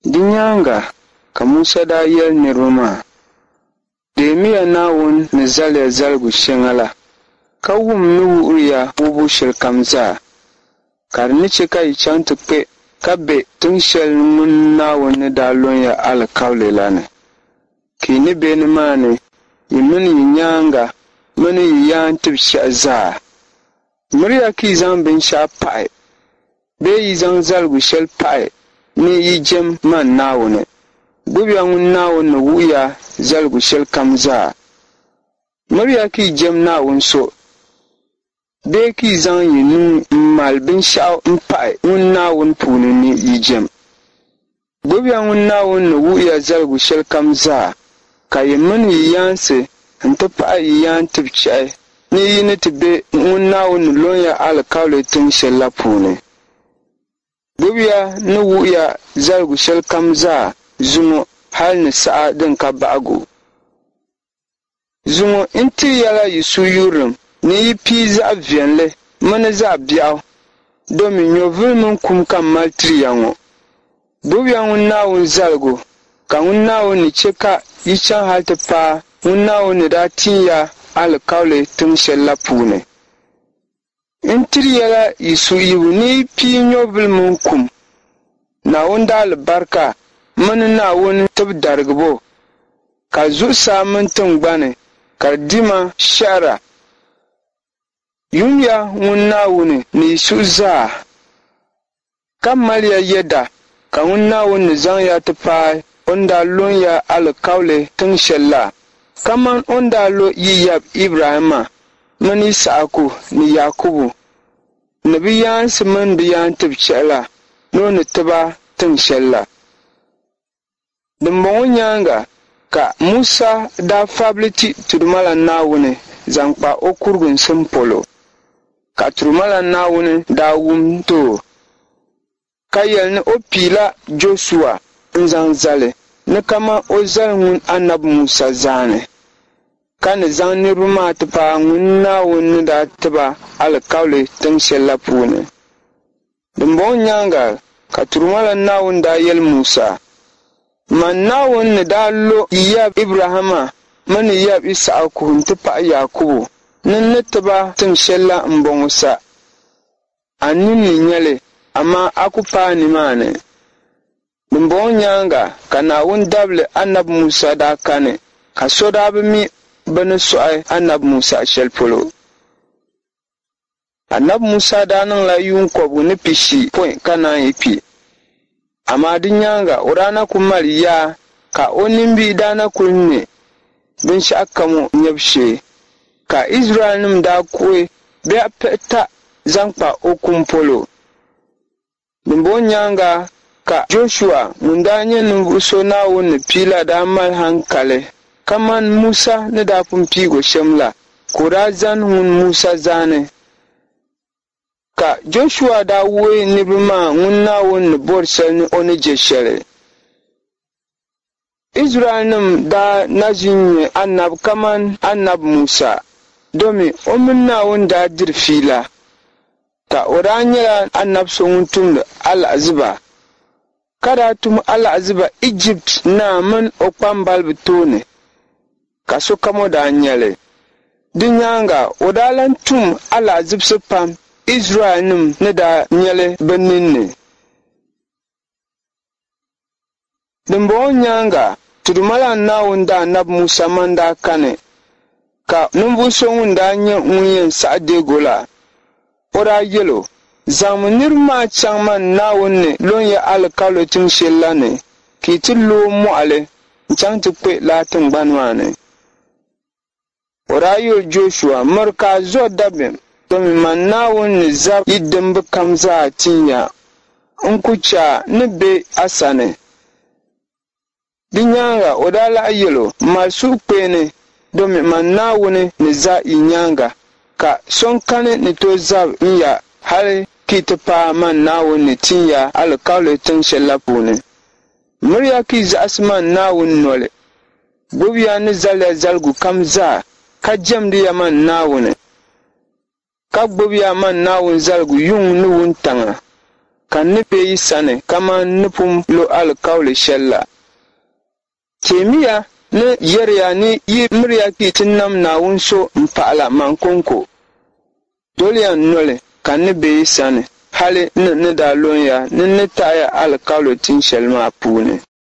Di nyaaŋa ka Musa daa yɛli niriba maa, Deemiya Naawuni ni zali ya zaligu shɛŋa la, ka wum n ni wuhiri ya wuhibu shɛlikam zaa, ka di ni chɛ ka yi chaŋ ti kpe ka be tiŋ shɛli ŋun Naawuni ni daa lɔn ya alikauli la ni. Ka yi ni be nimaani, yi mini yi nyaaŋa mini yi yaantibichɛhi zaa. Miriya ka yi zaŋ binshɛɣu pahi bee yi zaŋ zaligu shɛli pahi ni yi jɛm man Naawuni. Gbibiya ŋun Naawuni ni wuhi ya zaligu shɛlikam zaa. Miriya ka yi jɛm Naawuni so bee ka yi zaŋ yi nuu m-mali binshɛɣu m-pahi ŋun Naawuni puuni ni yi jɛm. Gbibiya ŋun Naawuni ni wuhi ya zaligu shɛlikam zaa, ka yi mini yi yaansi nti pahi yi yaantibichɛhi ni yi ni ti be ŋun Naawuni ni lɔn ya alikauli tiŋ shɛl la puuni. Gbibiya ni wuhi ya zaligu shɛlikam zaa zuŋɔ hal ni saha din ka bahigu. Zuŋɔ n tiri ya la yi suhuyurilim ni yi pii zaɣ viɛlli mini zaɣ biɛɣu, domi nyɔvili mini kum ka m mali tiri ya ŋɔ. Gbibiya ŋun Naawuni zaligu, ka ŋun Naawuni ni chɛ ka yi chaŋ hal ti paai ŋun Naawuni ni daa tin ya alikauli tiŋ shɛl la puuni. N tiri ya la yi suhuyibu ni yi pii nyɔvili mini kum, Naawuni daalibarika mini Naawuni tibidarigibo, ka zuɣusaa mini tiŋgbani ka di dima shɛhira. Yumiya ŋun Naawuni ni yi suhu zaa, ka maliya yɛda ka ŋun Naawuni ni zaŋ ya ti paai o ni daa lɔn ya alikauli tiŋ shɛl la, kaman o ni daa lo yi yab Ibrahimma mini Yisahaku ni Yaakubu ni bɛ yaansi mini bɛ yaantibichɛhi la ni o ni ti ba tiŋ shɛl la. Dimbɔŋɔ nyaaŋa ka Musa daa fabili ti Tudumalan Naawuni zaŋ kpa o kuriginsim polo, ka Tudumalan Naawuni daa wum ti o, ka yɛli ni o piila Jɔshua n-zaŋ zali ni kaman o zali ŋun Anabi Musa zaani, ka ni zaŋ niriba maa ti paai ŋun Naawuni ni daa ti ba alikauli tiŋ shɛl la puuni. Dimbɔŋɔ nyaaŋa ka Turumalan Naawuni daa yɛli Musa, Man Naawuni ni daa lo yi yab Ibrahimma mini yi yab Yisahaku nti pahi Yaakubu ni n ni ti ba tiŋ shɛl la m-bɔŋɔ sa. A nini ni nya li, amaa a ku paai nimaani. Dimbɔŋɔ nyaaŋa ka Naawuni dabili Anabi Musa daa kani, ka so daa bi mi bɛ ni sɔɣi Anabi Musa shɛli polo. Anabi Musa daa niŋla yuun kɔbigu ni pishi pɔi ka naan yi kpi. Amaa di nyaaŋa o daa na kul mali yaa ka o nimbihi daa na kul ne binshɛɣukam o nyabu shee. Ka Izraɛlnim daa kuhi biɛɣ pihita zaŋ kpa o kum polo. Dimbɔŋɔ nyaaŋa ka Jɔshua ŋun daa nyɛ ninvuɣ so Naawuni ni pii la daa mali haŋkali kaman Musa ni daa pun piig o shɛm la, ka o daa zani ŋun Musa zaani. Ka Jɔshua daa wuhi niriba maa ŋun Naawuni ni bɔri shɛli ni o ni je shɛli. Izraɛlnim daa na ʒi n-nyɛ anabi kaman Anabi Musa, domi o mini Naawuni daa diri fiila, ka o daa nyɛla anab so ŋun tumdi alahiziba, ka daa tum alahiziba Ijipti naa min o kpambaliba tooni, ka sokam o daa nya li. Di nyaaŋa o daa lan tum alahizibisi pam Izraɛlnim ni daa nya li bɛ ninni. Dimbɔŋɔ nyaaŋa, Tudumalan Naawuni daanabi Musa man daa kani, ka ninvuɣ so ŋun daa nyɛ ŋun yɛn saɣi deeg o la, o daa yɛl o, Zaŋmi niriba maa chaŋ man Naawuni ni lɔn ya alikauli tiŋ shɛl la ni, ka yi ti looi mɔɣili n-chaŋ ti kpe lala tiŋgbani maa ni. O daa yɛli Jɔshua, Miri ka a zo dabiɛm, domi man Naawuni ni zab yi dimba kam zaa tin ya. N ku chɛ a ni be a sani. Di nyaaŋa o daa lahi yɛl o, Mali suhukpeeni, domi man Naawuni ni za yi nyaaŋa, ka so n-kani ni tooi zab n ya hal ka yi ti paai man Naawuni ni tin ya alikauli tiŋ shɛl la puuni. Miriya ka yi zaɣisi man Naawuni noli. Gbibiya n ni zali ya zaligu kam zaa, ka jɛmdi ya man Naawuni, ka gbibiya man Naawuni zaligu yuŋ ni wuntaŋa. Ka n ni be yi sani kaman n ni pun lo alikauli shɛl la. Teemiya ni yɛri ya ni yi miriya ka yi ti nam Naawuni so m-pahila man kɔŋko. Doliya n noli, ka n ni be yi sani hali ni n ni daa lɔn ya ni n ni taɣi ya alikauli tin shɛli maa puuni.